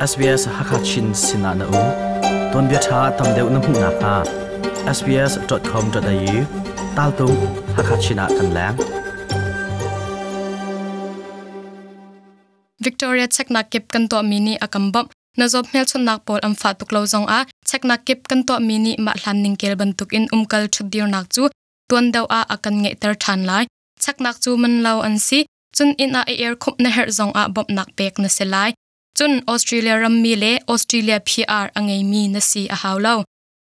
SBS Hakachin sinah na um. Tuanbia ṭha tam deuh na hmuh nakhnga sbs.com.au taltung Hakachin ah kan leng. Victoria cheknak kip kan tuahmi nih a kan bawmh. Na zawt hmelchunhnak pawl an fah tuk lo zongah cheknak kip kan tuahmi nih mah hlan ningkel bantukin umkal ṭhutdirnak cu tuan deuh ah a kan ngeihter ṭhan lai. Cheknak cu man lo an si. Cun inn ah i erkhumh na herh zongah bawmhnak pek na si lai. Cun Australia rammi le Australia PR a ngeimi na si a hau lo.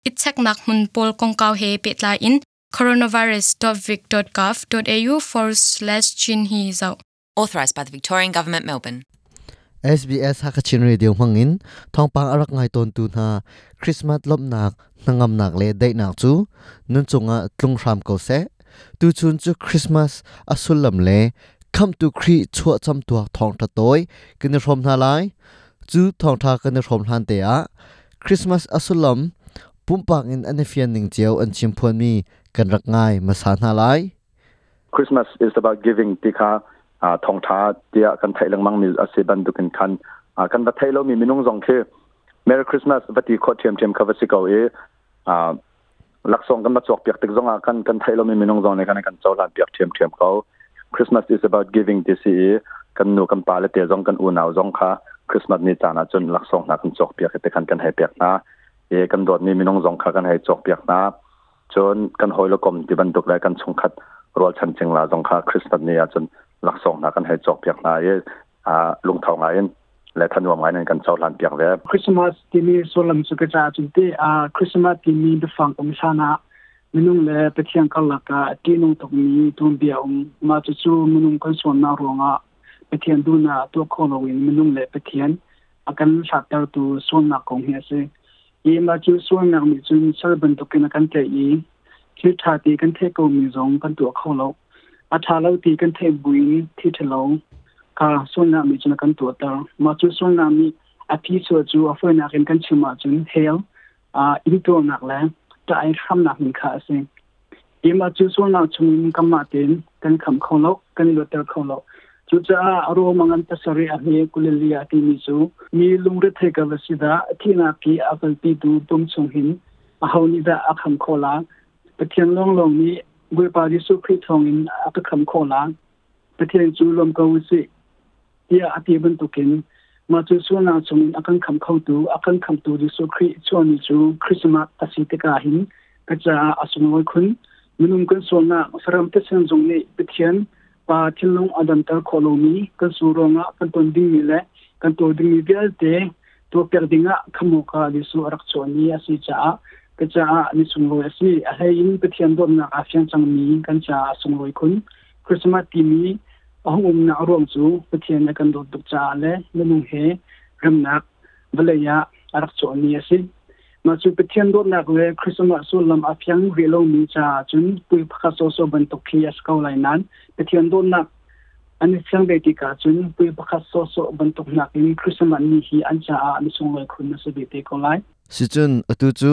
I cheknak hmun pawl kongkau he pehtlai in coronavirus.vic.gov.au forward slash chin hi zoh. Authorised by the Victorian Government, Melbourne. SBS Hakachin Radio hmangin thawngpang a rak ngai tawntu hna Christmas lawmhnak, hnangamnak le daihnak cu nan cungah tlung hram ko seh. Tuchun cu Christmas a sullam le Khamhtu Khrih chuahcam tuak thawngṭha tawi kan i hrawm hna lai. Cu thawngṭha kan i hrawm hlan te ah Christmas a sullam pumpak in an i fian ning cio an chim phuanmi kan rak ngai hmasa hna lai. Christmas is about giving ti kha thawngṭha tiah kan theih lengmang mi a si bantukin khan kan va thei lomi minung zong khi Merry Christmas va ti khawh ṭhiamṭhiam kha va si ko i laksawng kan va cawk piak tik zongah kan kan theih lomi minung zong nih kan kan cohlan piak ṭhiamṭhiam ko. Christmas is about giving ti si i kan nu kan pa le te zong kan unau zong kha Christmas ni caan ah cun laksawng hna kan cawk piak i te khan kan hei pek hna i kan dawtmi minung zong kha kan hei cawk piak hna. Cun kan hawi le kom ti bantuk le kan chungkhat rualchan cingla zong kha Christmas ni ahcun laksawng hna kan hei cawk piak hna i lungtho ngai in le thanuam ngai in kan cohlan piak ve. Christmas timi sullam cu ka caah cun te Christmas timi biafang um hlan ah minung le Pathian karlak ah ṭihnung tukmi tuanbia um. Mah cucu minung kan sualnak ruangah Pathian duhnak tuah kho loin minung le Pathian a kan hlattertu sualnak kong hi a si. Hi mah cu sualnak nih cun sal bantukin a kan tlaih i thil ṭha ti kan theih komi zong kan tuah kho lo. A ṭha lo ti kan theih buin thil ṭhalo kha sualnak nih cun a kan tuahter. Mah cu sualnak nih a phichuah cu a fawinak in kan chim ahcun hell, intuarnak le ṭah i hramnak min kha a si. Hi mah cu sualnak chungin kanmah tein kan khamh kho lo, kan i luatter kho lo. Cucaah Rom a ngan pasarih a hme kulili ah timi cu mi lungrethei ka va si dah, thihnak i a kalpitu pum chung hin aho nih dah a kham khawh la? Pathian lawnglawng nih Bawipa Jesuh Khrih thawngin a ka kham khawh la. Pathian cu lawm ko u sih tiah a ti bantukin mah cu sualnak chungin a kan kham khotu, a kan khamtu Jesuh Khrih chuahni cu Christmas a si tikah hin ka caah a sunglawi khun. Minung kan sualnak saram thisen zong nih Pathian Pa thinlung a damter khawh lomi kan su ruangah kan ton dingmi le kan tuar dingmi vialte tuahpiak dingah khamawka Jesuh a rak chuahni a si caah ka caah ni sunglawi a si. A hlei in Pathian dawtnak aa fiang cangmi kan caah a sunglawi khun. Christmas timi a hung umnak a ruang cu Pathian a kan dawt tuk caah le minung he remnak vawlei ah a rak chuahmi a si. Mah cu Pathian dawtnak le Christmas sullam a fiang rih lomi caah cun pui pakhat sawsawh bantuk khi a si ko lai nain Pathian dawtnak an i fiang ve tikah cun pui pakhat sawsawh bantuk nakin Christmas ni hi an caah ni sunglawi khun a si ve te ko lai. Sicun atu cu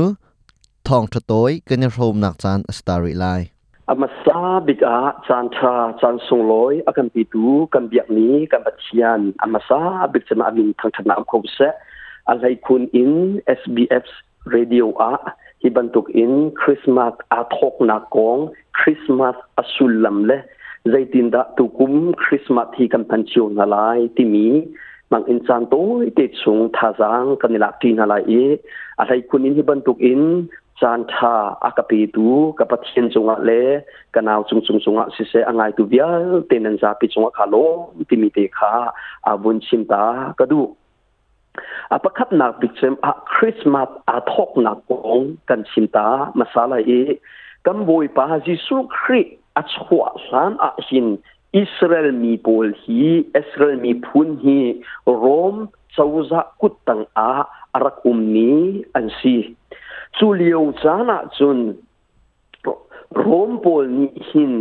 thawngṭha tawi kan i hrawmnak caan a si ta rih lai. A hmasa bik ah caan ṭha, caan sunglawi a kan petu kan biakmi kan Pathian a hmasa bik cem ah a min thangṭhatnak um kho seh. A hleikhun in SBF radio ah hi bantuk in Christmas aa thawknak kong, Christmas a sullam le zeitindah tukum Christmas hi kan hman cio hna lai timi mang in caan tawi te chung thazaang kan i lak ṭi hna lai i a hleikhun in hi bantuk in caan ṭha a ka petu ka Pathian cungah le ka nau cungcung cungah siseh a ngaitu vialte nan zapi cungah kha lawm timi te kha a vun chim ta ka duh. A pakhatnak bik cem ah Christmas aa thawknak kong kan chim ta hmasa lai i kan Bawipa Jesuh Khrih a chuah hlan ah hin Israel mi pawl hi Israel miphun hi Rom cozah kuttang ah a rak ummi an si. Cu lio caan ah cun Rom pawl nih hin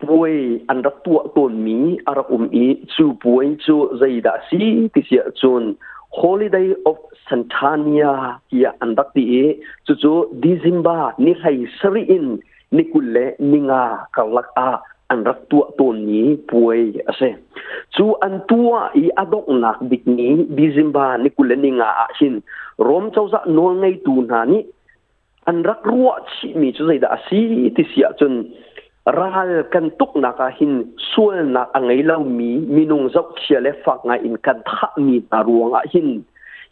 puai an rak tuah tawnmi a rak um i cu puai cu zeidah a si ti si ahcun Holiday of Santania tiah an rak ti i cucu December ni hlei sarih in ni 25 karlak ah An rak tuah tawnmi puai a si. Cu an tuah i a donghnak bik ni December ni 25 ah hin Rom cozah nawlngeitu hna nih an rak ruah chihmi cu zeidah a si ti si ahcun, ral kan tuknak ah hin sualnak a ngei lomi minung zohchia le fak ngai in kan thahmi hna ruangah hin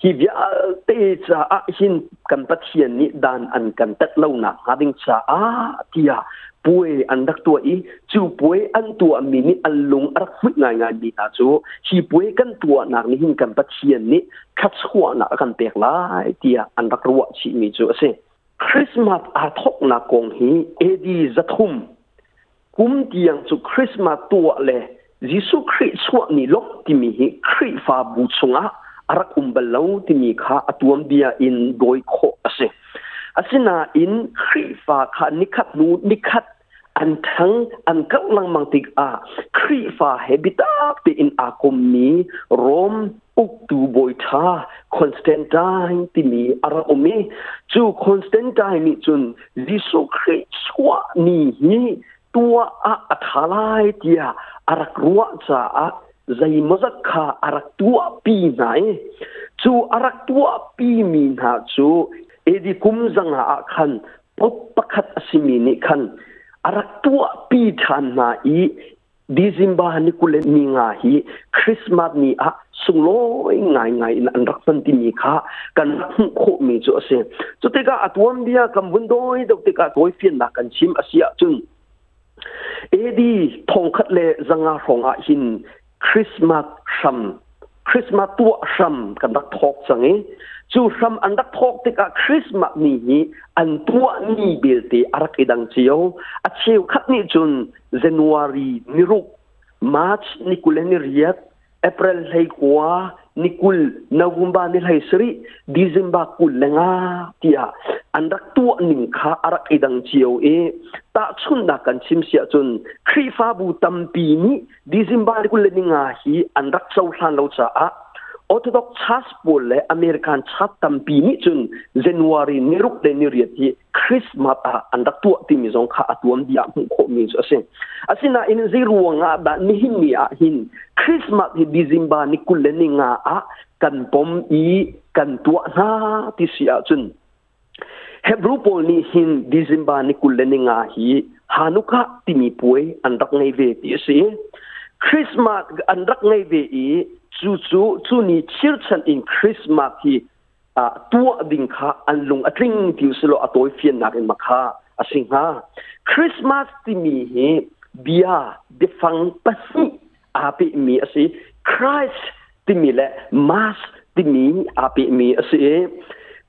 hi vialte caah hin kan Pathian nih dan an kan tat lonak hnga ding caah tiah puai an rak tuah i, cu puai an tuahmi nih an lung a rak hmuih ngaingai mi hna cu hi puai kan tuahnak nih hin kan Pathian nih thluachuahnak a kan pek lai tiah an rak ruah chihmi cu a si. Christmas aa thawknak kong hi AD 300 kum tiang cu Christmas tuah le Jesuh Khrih chuah ni lawmh timi hi Khrihfabu chungah a rak um bal lo timi kha a tuanbia in dawi khawh a si. Asinain Khrihfa kha nikhat hnu nikhat an ṭhang an karh lengmang tikah Khrihfa he biatak tein aa kommi Rom uktu bawi ṭha Constantine timi a rak um i, cu Constantine nih cun Jesuh Khrih chuah ni hi tuah ah a ṭha lai tiah a rak ruah caah zeimawzat kha a rak tuahpi hna i, cu a rak tuahpi mi hna cu AD kum 500 ah khan Pope pakhat a simi nih khan a rak tuahpi ṭhan hna i, December ni 25 hi Christmas ni ah sunglawi ngaingai in an rak hman timi kha kan rak hmuh khawhmi cu a si. Cu tikah a tuanbia kan vun dawi deuh tikah tawifiannak kan chim a si ahcun, AD 1100 hrawng ah hin Christmas hram, Christmas tuah hram kan rak thawk cang i, cu hram an rak thawk tikah Christmas ni hi an tuah ni belte a rak i dang cio. A cheukhat nih cun January ni 6, March ni 28, April 19, ni 20, November ni 17, December 25 tiah an rak tuah ning kha a rak i dang cio i, tahchunhnak kan chim si ahcun Khrihfabu tampi nih December ni 25 hi an rak cohlan lo caah Orthodox Church pawl le American Church tampi nih cun January ni 6 le ni 8 hi Christmas ah an rak tuah timi zong kha a tuanbia ah hmuh khawhmi cu a si. Asinain zei ruang ah dah nihin ni ah hin Christmas hi December ni 25 ah kan pom i kan tuah hna ti si ahcun, Hebrew pawl nih hin December ni 25 hi Hanukkah timi puai an rak ngei ve ti a si. Christmas an rak ngei ve i, cu cu cu ni chirchan in Christmas hi tuah ding kha an lung a tling ti usilo a tawi fiannak in makha a si hnga. Christmas timi hi bia biafang pahnih aa pehmi a si. Christ timi le Mass timi aa pehmi a si i,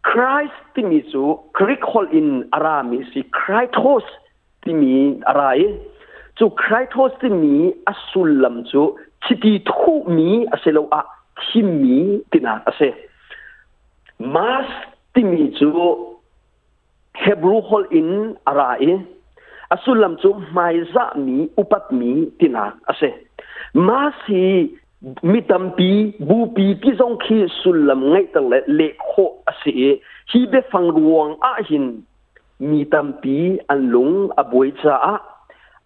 Christ timi cu Greek holh in a rami a si. Christos timi a ra i, cu Christos timi a sullam cu chiti thuhmi asiloah thimmi tinak a si. Mass timi cu Hebrew holh in a ra i, a sullam cu hmaizahmi, upatmi tinak a si. Mass hi mi tampi, bupi ti zong khi sullam ngeihter le leh khawh a si i, hi biafang ruang ah hin mi tampi an lung a buai caah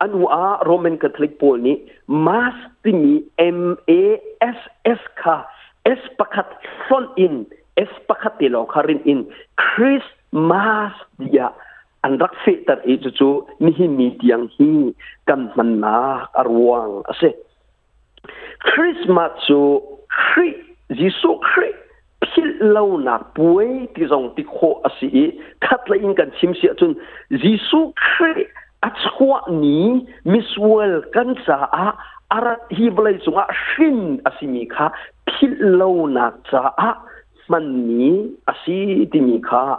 anu ah Roman Catholic pawl nih Mass timi M-A-S-S kha S pakhat hlonh in, S pakhat te lawng kha rin in Christmas tiah an rak fehter i, cucu nihin ni tiang hi kan hmannak a ruang a si. Christmas cu Khrih, Jesuh Khrih philh lonak puai ti zong ti khawh a si i, khatlei in kan chim si ahcun Jesuh Khrih a chuah ni, misual kan caah a rat, hi vawlei cungah hrin a simi kha philh lonak caah hmanmi a si timi kha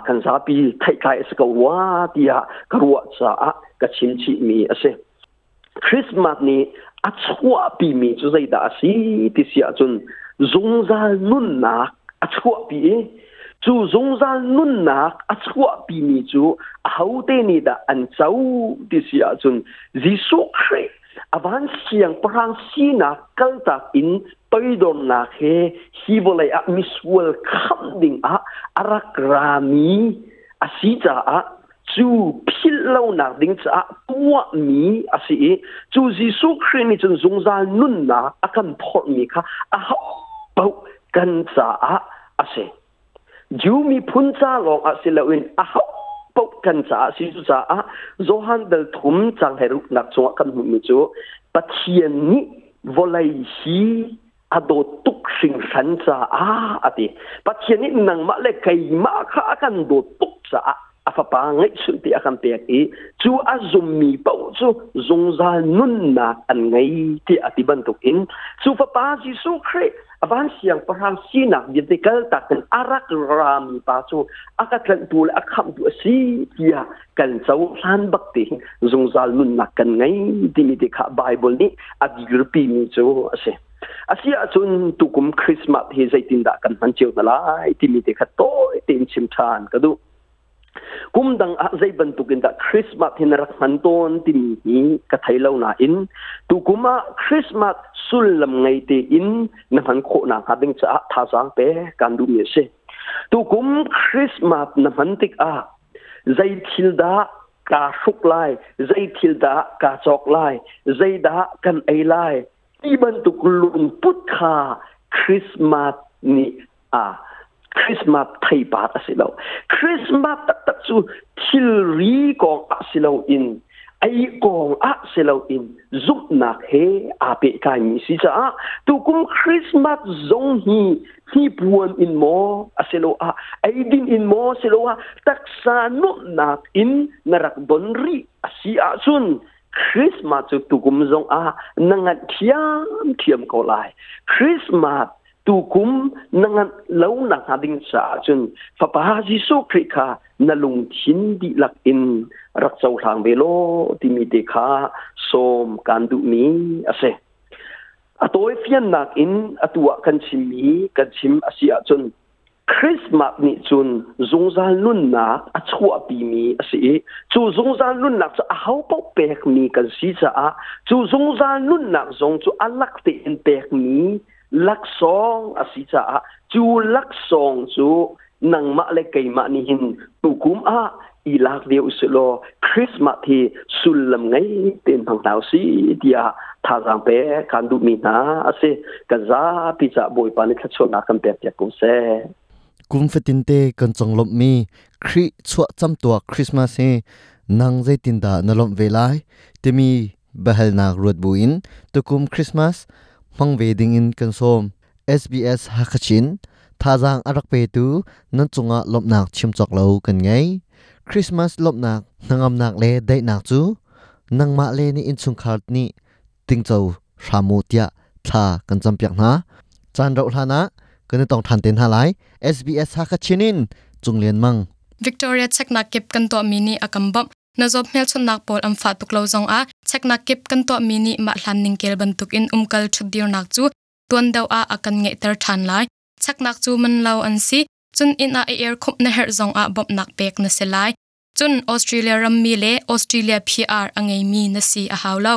kan zapi theihtlai a si ko rua tiah ka ruah caah ka chim chihmi a si. Christmas nih a chuahpimi cu zeidah a si ti si ahcun, zungzal nunnak a chuahpi i, cu zungzal nunnak a chuahpimi cu ahote nih dah an co ti si ahcun, Jesuh Khrih a van siangpahrang sinak kaltak in toidornak he hi vawlei ah misual khamh ding ah a rak rami a si caah. Cu philh lonak ding caah tuahmi a si i cu Jesuh Khrih nih cun zungzal nunnak a kan phorhmi kha aho paoh kan caah a si. Jew miphun ca lawng ah si loin aho paoh kan caah a si. Cucaah Johan dal thum cang 16nak chungah kan hmuhmi cu Pathian nih vawlei hi a dawt tuk hringhran caah a ti. Pathian nih nangmah le keimah kha a kan dawt tuk caah a fapa ngeihchunh te a kan pek i cu a zummi paoh cu zungzal nunnak an ngei tiah a ti bantukin cu fapa Jesuh Khrih a van siangpahrang sinak vialte kaltak in a rak rami pa cu a ka tlanhtu le a khamhtu a si tiah kan cohlan bak te zungzal nunnak kan ngei timi te kha Bible nih a dirpimi cu a si. Asi ahcun tukum Christmas hi zeitindah kan hman cio hna lai timi te kha tawi tein chim ṭhan ka duh. Kum dang ah zei bantuk in dah Christmas hi na rak hman tawn timi hi ka thei lo nain tukum ah Christmas sullam ngei tein na hman khawh nakhnga ding caah thazaang pe kan duhmi a si. Tukum Christmas na hman tikah zei thil dah kaa hruk lai, zei thil dah kaa cawk lai, zei dah kan ei lai ti bantuk lungput kha Christmas nih a Christmas theipar a si lo. Christmas taktak cu thilri kong ah si loin ei kong ah si loin zumhnak he aa pehtlaimi si caah tukum Christmas zong hi hnipuan in maw asiloah eidin in maw asiloah taksa nuamhnak in na rak don rih a si ahcun Christmas cu tukum zong ah na nganh thiamthiam ko lai. Christmas tukum na nganh lo nak hnga ding caah cun Fapa Jesuh Khrih kha na lungthin dihlak in rak cohlang ve law timi te kha sawm kaan duhmi a si. A tawi fiannak in atu ah kan chimmi kan chim a si ahcun Christmas nih cun zungzal nunnak a chuahpimi a si i cu zungzal nunnak cu ahopaoh pekmi kan si caah cu zungzal nunnak zong cu a lak tein pekmi laksawng a si caah cu laksawng cu nangmah le keimah nih hin tukum ah i lak ve usih law Christmas hi sullam ngei tein hmang hna usih tiah thazaang pe kan duhmi hna a si. Kan zapi caah Bawipa nih thluachuahnak kan pek piak ko seh. Kum fatinte kan conglawmhmi Khrih chuah camtuak Christmas hi nang zeitindah na lawmh ve lai timi biahalnak ruat buin tukum Christmas hmang ve dingin kan sawm. SBS Hakachin thazaang a rak petu nan cungah lawmhnak chim cawk lo kan ngei. Christmas lawmhnak hnangamnak le daihnak cu nangmah le na innchungkhar nih tingco hram u tiah thla kan campiak hna. Caan rauh hlan ah kan i tong ṭhan te hna lai. SBS Hakachin in Cung Lian Mang. Victoria cheknak kip kan tuahmi nih a kan bawmh. Na zawt hmelchunhnak pawl an fah tuk lo zongah cheknak kip kan tuahmi nih mah hlan ningkel bantukin umkal ṭhutdirnak cu tuan deuh ah a kan ngeihter ṭhan lai. Cheknak cu man lo an si, cun inn ah i erkhumh na herh zongah bawmhnak pek na si lai. Cun Australia rammi le Australia PR a ngeimi na si a hau lo.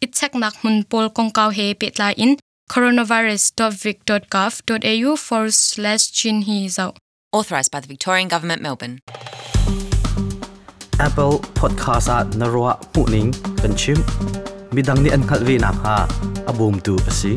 I cheknak hmun pawl kongkau he pehtlai in coronavirus.vic.gov.au/chin hi zoh. Authorised by the Victorian Government, Melbourne. Apple Podcast ah na ruah hmuhning kan chimh. Midang nih an hngalh ve nakhnga a bawmtu a si.